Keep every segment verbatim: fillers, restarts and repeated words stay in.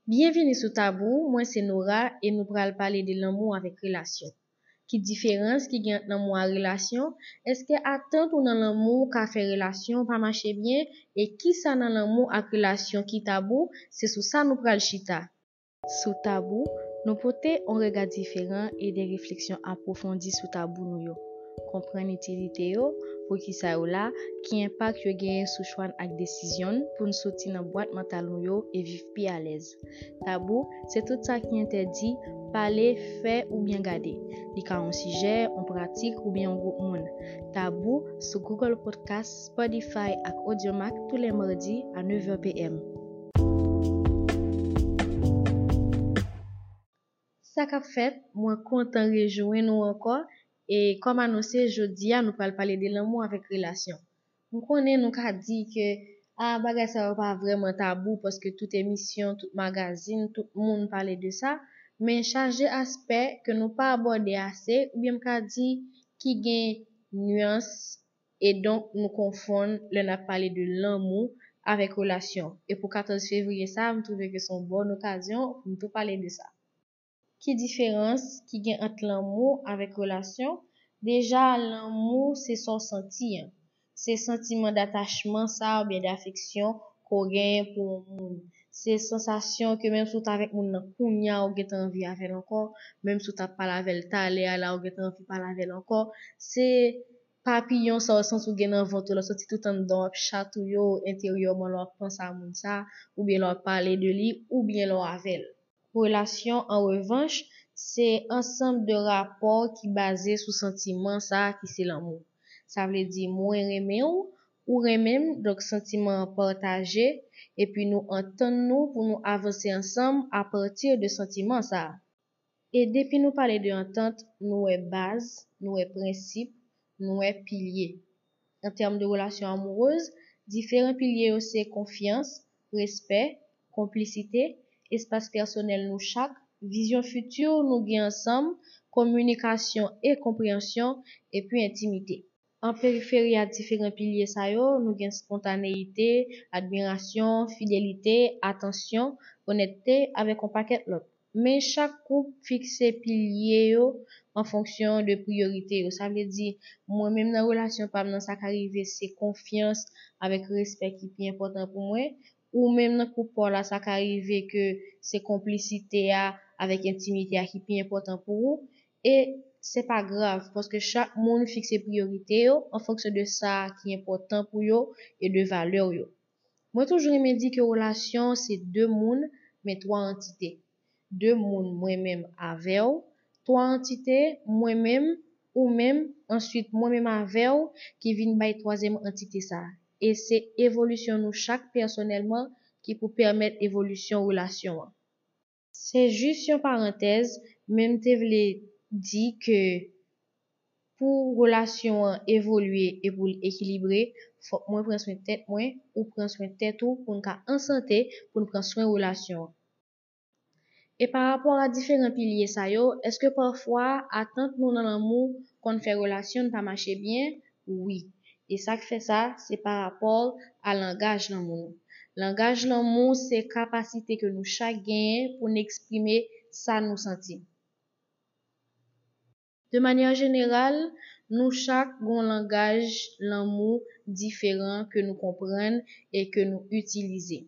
Byenvini sou Tabou, mwen se Nora e nou pral pale de lanmou avèk relasyon. Ki diferans ki gen ant lanmou ak relasyon? Èske atant ou nan lanmou ka fè relasyon pa mache byen? E kisa nan lanmou ak relasyon ki tabou? Se sou sa nou pral chita. Sou Tabou, nou pote yon rega diferan e de refleksyon apwofondi sou tabou nou yo. Konprann itilite yo, poukisa yo la, ki enpak yo genyen sou chwa n ak desizyon n pou n soti nan bwat mantal nou yo e viv pi alèz. Tabou, se tout sa ki entèdi pale, fè oubyen gade. Li ka yon sijè, yon pratik oubyen yon gwoup moun. Tabou sou Google Podcast, Spotify ak Audiomack tou lè madi a nèv è p m. Sa k ap fèt? Mwen kontan rejwenn ou ankò. E kòm anonse, jodi a nou pral pale de lanmou avèk relasyon. M konnen nou ka di ke a bagay sa yo pa vrèman tabou paske tout emisyon, tout magazin, tout moun pale de sa, men chaje aspè ke nou pa abòde ase oubyen m ka di ki gen nyans e donk nou konfonn lè n ap pale de lanmou avèk relasyon. E pou katòz fevriye sa a, m twouve ke se yon bòn okazyon pou m tou pale de sa. Ki diferans ki gen ant lanmou avèk relasyon? Deja, lanmou se sa w santi an. Se santiman datachman sa oubyen dafeksyon ke w genyen pou yon moun. Se sansasyon ke menm si w t avèk moun nan kounye a, ou gentan anvi avè l ankò, menm si w t ap pale avè l talè a la, ou gentan anvi pale avè l ankò. Se papiyon sa w santi w gen nan vant ou la, w santi tout anndan w ap chatouye w enteryèman lè w ap panse a moun sa, oubyen lè w ap pale de li, oubyen lè w avè l. Relasyon, an revanch, se ansanm de rapò ki baze sou santiman sa a ki se lanmou. Sa vle di, mwen renmen w, ou renmen m, donk santiman an pataje, epi nou antann nou pou nou avanse ansanm apati de santiman sa a. E depi nou pale de antant, nou wè baz, nou wè prensip, nou wè pilye. An tèm de relasyon amourez, diferan pilye yo se konfyans, respè, konplisite, espas pèsonèl nou chak, vizyon fiti nou gen ansanm, kominikasyon e konpreyansyon, epi entimite. An periferi a diferan pilye sa yo, nou gen spontaneyite, admirasyon, fidelite, atansyon, onètete, avèk yon pakèt lòt. Men chak koup fikse pilye yo an fonksyon de priyorite yo. Sa vle di, mwen menm nan relasyon pa m nan, sa ka rive se konfyans avèk respè ki pi enpòtan pou mwen. Ou menm nan koup pa w la, sa ka rive ke se konplisite a avèk entimite a ki pi enpòtan pou ou. E se pa grav, paske chak moun fikse priyorite yo an fonksyon de sa ki enpòtan pou yo e de valè yo. Mwen toujou renmen di ke relasyon se de moun, men twa antite. De moun, mwen menm avè w, twa antite, mwen menm, ou menm, answit mwen menm avè w, ki vin bay twazyèm antite sa a. E se evolisyon nou chak pèsonèlman ki pou pèmèt evolisyon relasyon an. Se jis yon parantèz, men m te vle di ke pou relasyon an evolye e pou l ekilibre, fòk mwen pran swen tèt mwen, ou pran swen tèt ou, pou n ka an sante, pou n pran swen relasyon an. E pa rapò a diferan pilye sa yo, èske pafwa atant nou nan lanmou konn fè relasyon n pa mache byen? Wi. E sa k fè sa, se pa rapò a langaj lanmou nou. Langaj lanmou se kapasite ke nou chak genyen pou n eksprime sa nou santi. De manyè jeneral, nou chak gen yon langaj lanmou diferan ke nou konprann e ke nou itilize.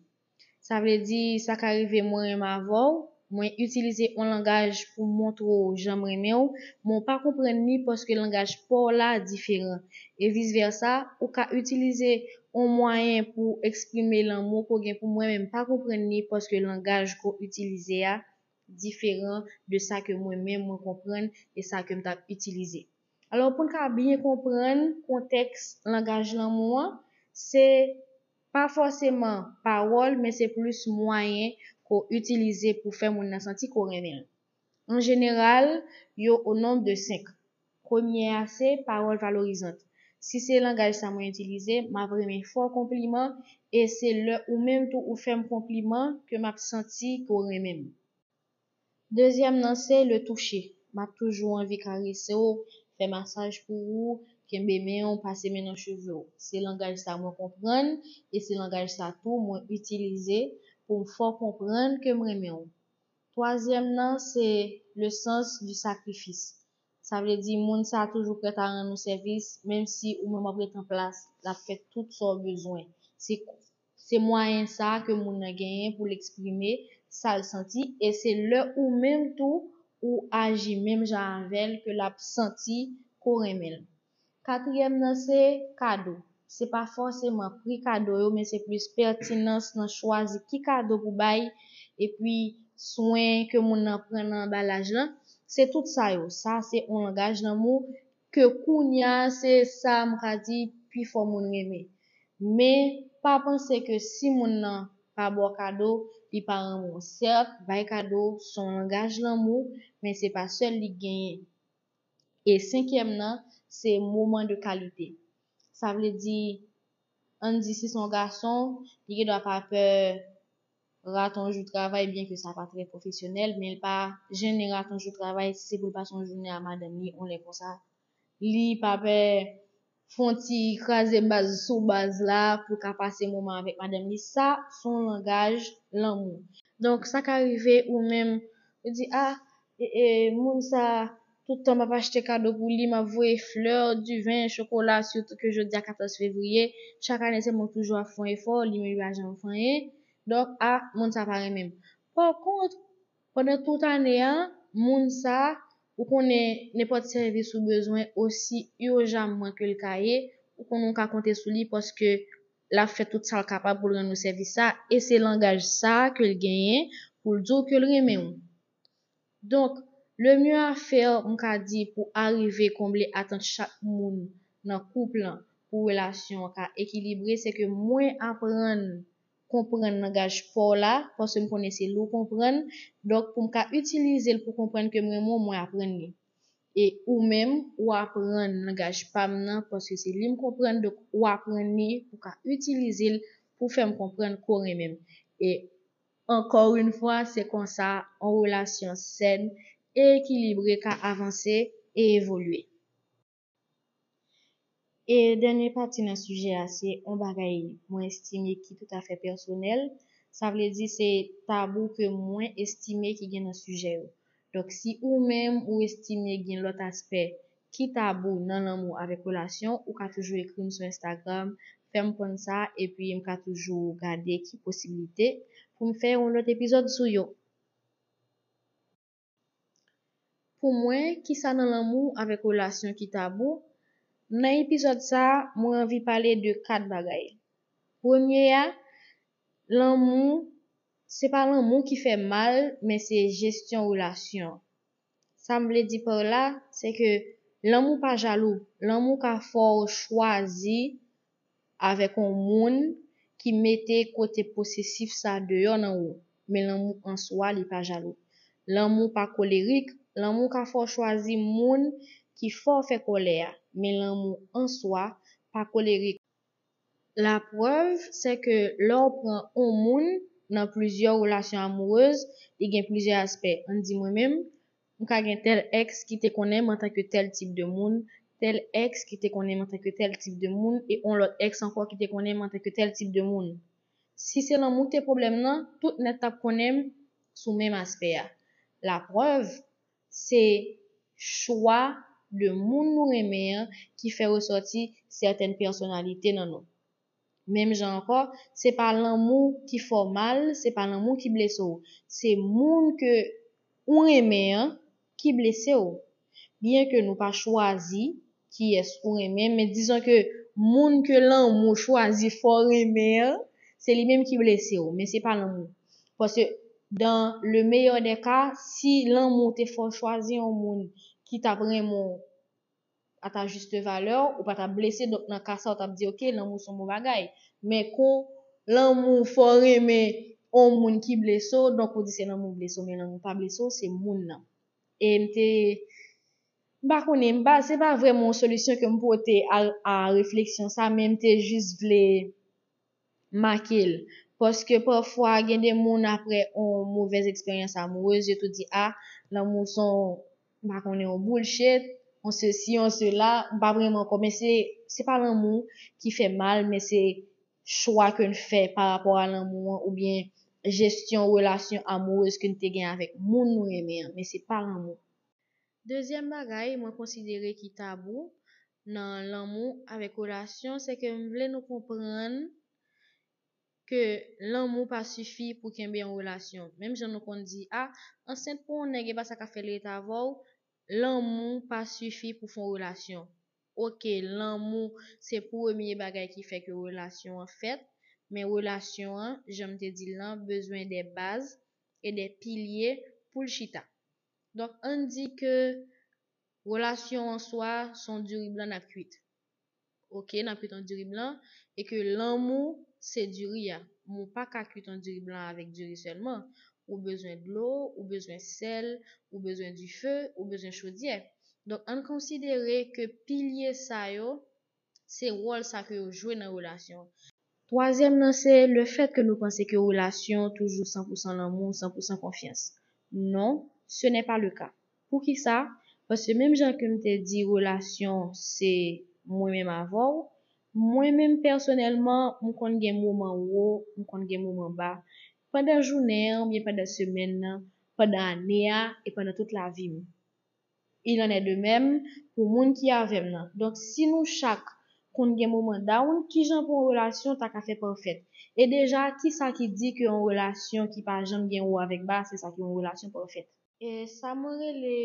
Sa vle di, sa ka rive mwen renmen avè w, mwen itilize yon langaj pou montre w jan m renmen w, men w pa konprann li paske langaj pa w la diferan. E vis vèsa, ou ka itilize yon mwayen pou eksprime lanmou ke w gen pou mwen, men m pa konprann li paske langaj ke w itilize a diferan de sa ke mwen menm mwen konprann e sa ke m t ap itilize. Alò, pou n ka byen konprann kontèks langaj lanmou an, se pa fòseman pawòl, men se plis mwayen ke w itilize pou fè moun nan santi ke w renmen l. An jeneral, yo o nonb de senk. Premye a se pawòl valorizant. Si se langaj sa mwen itilize, m ap renmen fè w konpliman e se lè ou menm tou ou fè m konpliman ke m ap santi ke w renmen m. Dezyèm nan se le toucher. M ap toujou anvi karese w, fè masaj pou ou, kenbe men w, pase men nan cheve w. Se langaj sa mwen konprann e se langaj sa tou mwen itilize pou m fè w konprann ke m renmen w. Twazyèm nan, se le sens du sacrifice. Sa vle di, moun sa a toujou prèt a rann ou sèvis, menm si ou menm w ap ret an plas, l ap fè tout sa w bezwen. Se, se mwayen sa a ke moun nan genyen pou l eksprime sa l santi, e se lè ou menm tou, ou aji menm jan avè l ke l ap santi ke w renmen l. Katriyèm nan se kado. Se pa fòseman pri kado yo, men se plis pètinans nan chwazi ki kado pou bay, epi swen ke moun nan pran nan anbalaj lan. Se tout sa yo. Sa se yon langaj lanmou ke kounye a se sa m ka di pifò moun renmen. Men pa panse ke si moun nan pa ba w kado, li pa renmen w. Sèt, bay kado se yon langaj lanmou, men se pa sèl li genyen. E senkyèm nan, se moman de kalite. Sa vle di, ann di si se yon gason, li gendwa pa pè rate yon jou travay, byen ke sa pa trè pwofesyonèl, men li pa jennen rate yon jou travay si se pou l pase yon jounen a madanm li, yon lè konsa. Li pa pè fè yon ti kraze baz sou baz la pou l ka pase moman avèk madanm li. Sa se yon langaj lanmou. Donk, sa ka rive ou menm, ou di, a, e, e, moun sa, tout tan m ap achte kado pou li, m ap voye flè, diven, chokola, sitou ke jodi a katòz fevriye, chak ane se mwen toujou ap fè yon efò, li menm li pa janm fè anyen. Donk, a, moun sa pa renmen m. Pa kont, pandan tout ane a, moun sa, ou konnen nenpòt sèvis ou bezwen osi ijanman ke l ka ye, ou konnen ou ka konte sou li paske l ap fè tout sa l kapab pou l rann ou sèvis sa, e se langaj sa ke l genyen pou l di w ke l renmen w. Donk, le mieux à faire, m ka di, pou arive konble atant chak moun nan koup lan, pou relasyon an ka ekilibre, se ke mwen aprann konprann langaj pa w la, paske m konnen se li w konprann. Donk, pou m ka itilize l pou konprann ke m renmen w, mwen aprann li. E ou menm, ou aprann langaj pa m nan, paske se li m konprann, donk ou aprann li pou w ka itilize l pou fè m konprann ke w renmen m. E ankò yon fwa, se konsa yon relasyon sèn e ekilibre ka avanse e evolye. E dènye pati nan sijè a, se yon bagay mwen estime ki toutafè pèsonèl. Sa vle di se tabou ke mwen estime ki gen nan sijè yo. Donk, si ou menm ou estime gen lòt aspè ki tabou nan lanmou avèk relasyon, ou ka toujou ekri m sou Instagram, fè m konn sa, epi m ka toujou gade ki posiblite pou m fè yon lòt epizòd sou yo. Pou mwen, kisa nan lanmou avèk relasyon ki tabou? Nan epizòd sa a, mwen anvi pale de kat bagay. Premye a, lanmou, se pa lanmou ki fè mal, men se jesyon relasyon. Sa m vle di pa la, se ke lanmou pa jalou. Lanmou ka fè w chwazi avèk yon moun ki mete kote posesif sa deyò nan ou. Men lanmou an swa, li pa jalou. Lanmou pa kolerik, lanmou ka fè w chwazi moun ki fè w fè kòlè a. Men lanmou an swa pa kolerik. Laprèv, se ke lè w pran yon moun nan plizyè relasyon amourez, li gen plizyè aspè. Ann di mwen menm, m ka gen tèl èks ki te konnen m antanke tèl tip de moun, tèl èks ki te konnen m antanke tèl tip de moun, e yon lòt èks ankò ki te konnen m antanke tèl tip de moun. Si se lanmou ki te pwoblèm nan, tout nèt t ap konnen m sou menm aspè a. Laprèv, se chwa de moun nou renmen an ki fè resòti sètèn pèsonalite nan nou. Menm jan ankò, se pa lanmou ki fè w mal, se pa lanmou ki blese w. Se moun ke ou renmen an ki blese w. Byen ke nou pa chwazi kiyès ou renmen, men dizon ke moun ke lanmou chwazi fè w renmen an, se li menm ki blese w, men se pa lanmou. Paske, dans le meilleur des cas, si lanmou te fè w chwazi yon moun ki t ap renmen w, à ta juste valeur, ou pa t ap blese, donk nan ka sa, ou t ap di, oke, lanmou se yon bon bagay. Men kon lanmou fè w renmen yon moun ki blese w, donk ou di se lanmou blese w, men lanmou pa blese w, se moun nan. E m te, m pa konnen, m pa, se pa vrèman yon solisyon ke m pote a, a refleksyon sa, men m te jis vle make l. Paske pafwa, gen de moun apre yon movèz eksperyans amourez, yo tou di, a, lanmou se yon, m pa konnen, yon bullshit, yon sesi, yon sela, m pa vrèman kwè, men se, se pa lanmou ki fè mal, men se chwa ke n fè pa rapò a lanmou an, oubyen jesyon relasyon amourèz ke n te gen avèk moun nou renmen an, men se pa lanmou. Dezyèm bagay mwen konsidere ki tabou nan lanmou avèk relasyon, se ke m vle nou konprann ke lanmou pa sifi pou kenbe yon relasyon. Menm jan nou konn di, a, ansent pou yon nèg, e pa sa k ap fè l ret avè w, lanmou pa sifi pou fè yon relasyon. Oke, lanmou se premye bagay ki fè ke relasyon an fèt, men relasyon an, jan m te di l lan, bezwen de baz e de pilye pou l chita. Donk, ann di ke relasyon an swa se yon diri blan n ap kwit. Oke, n ap kwit yon diri blan, e ke lanmou se diri a. Men w pa ka kwit yon diri blan avèk diri sèlman. Ou bezwen dlo, ou bezwen sèl, ou bezwen dife, ou bezwen chodyè. Donk, ann konsidere ke pilye sa yo, se wòl sa ke yo jwe nan relasyon an. Twazyèm nan, se le fèt ke nou panse ke relasyon toujou san pou san lanmou, san pou san konfyans. Non, ce n'est pas le cas. Poukisa? Paske menm jan ke m te di relasyon se mwen menm avè w, mwen menm pèsonèlman, m konn gen moman wo, m konn gen moman ba. Pandan jounen an, oubyen pandan semèn nan, pandan ane a, e pandan tout lavi m. Il en est de même pou moun ki avè m nan. Donk, si nou chak konn gen moman down, kijan pou yon relasyon ta ka fè pafèt? E deja, kisa ki di ke yon relasyon ki pa janm gen wo avèk ba, se sa ki yon relasyon pafèt? E sa mwen rele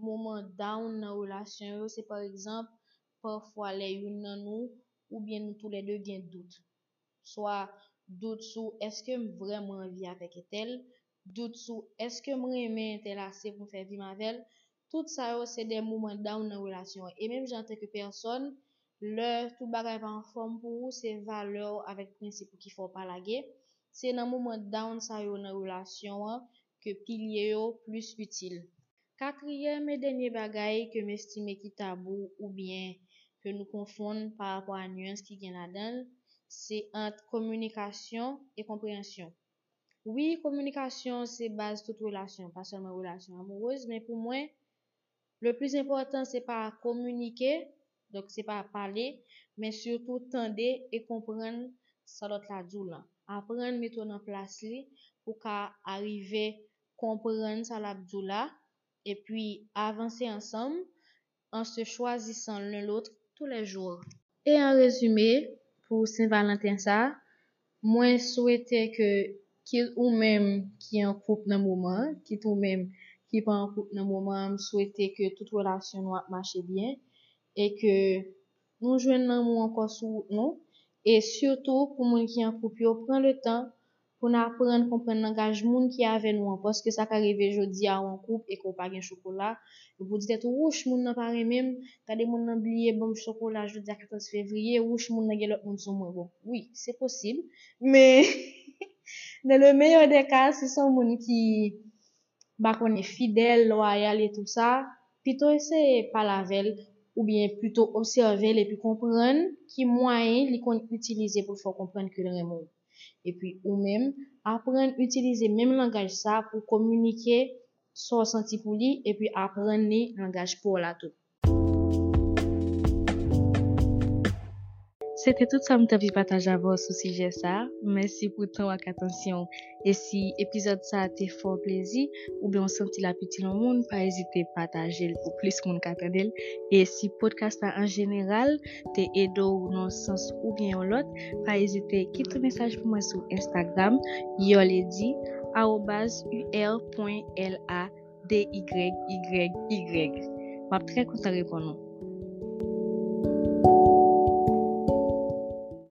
moman down nan relasyon yo, se pa egzanp, pafwa lè youn nan nou oubyen nou toulède gen dout. Swa dout sou èske m vrèman anvi avèk entèl, dout sou èske m renmen entèl ase pou m fè vi m avè l. Tout sa yo se de moman down nan relasyon an. E menm jan antanke pèsòn, lè tout bagay pa anfòm pou ou, se valè w avèk prensip ou ki fè w pa lage. Se nan moman down sa yo nan relasyon an ke pilye yo plis itil. Katriyèm e dènye bagay ke m estime ki tabou oubyen ke nou konfonn pa rapò a nyans ki gen ladan l, se ant kominikasyon e konpreyansyon. Wi, kominikasyon se baz tout relasyon, pa sèlman relasyon amourèz, men pou mwen, le plis enpòtan se pa kominike, donk se pa pale, men sitou tande e konprann sa lòt la di w lan. Aprann mete w nan plas li pou w ka arive konprann sa l ap di w la, epi avanse ansanm en se choisissant l'un l'autre tous les jours. E an rezime, pou Sen Valanten sa, mwen swete ke kit ou menm ki an koup nan moman an, kit ou menm ki pa an koup nan moman an, m swete ke tout relasyon nou ap mache byen e ke nou jwenn lanmou ankò sou wout nou. E sitou pou moun ki an koup yo, pran le tan pou n aprann konprann langaj moun ki avè nou an, paske sa ka rive jodi a ou an koup e ke w pa gen chokola, epi w di tèt ou, wouch, moun nan pa renmen m, gade moun nan bliye ban m chokola jodi a katòz fevriye, wouch, moun nan gen lòt moun sou mwen. Bon, wi, se posib, men dans le meilleur des cas, si se yon moun ki m pa konnen, fidèl, lwayal e tout sa, pito eseye pale avè l, oubyen pito obsève l epi konprann ki mwayen li konn itilize pou l fè w konprann ke l renmen w. Epi ou menm, aprann itilize menm langaj sa pou kominike sa w santi pou li, epi aprann li langaj pa w la tou. Se te tout sa m t anvi pataje avè w sou sijè sa. Mèsi pou tan w ak atansyon w. E si epizòd sa a te fè w plezi, oubyen w santi l ap itil yon moun, pa ezite pataje l pou plis moun ka tande l. E si podcast la an jeneral te ede w nan yon sans oubyen yon lòt, pa ezite kite yon mesaj pou mwen sou Instagram, Urlady, arobaz U R point L A D Y Y Y. M ap trè kontan reponn ou.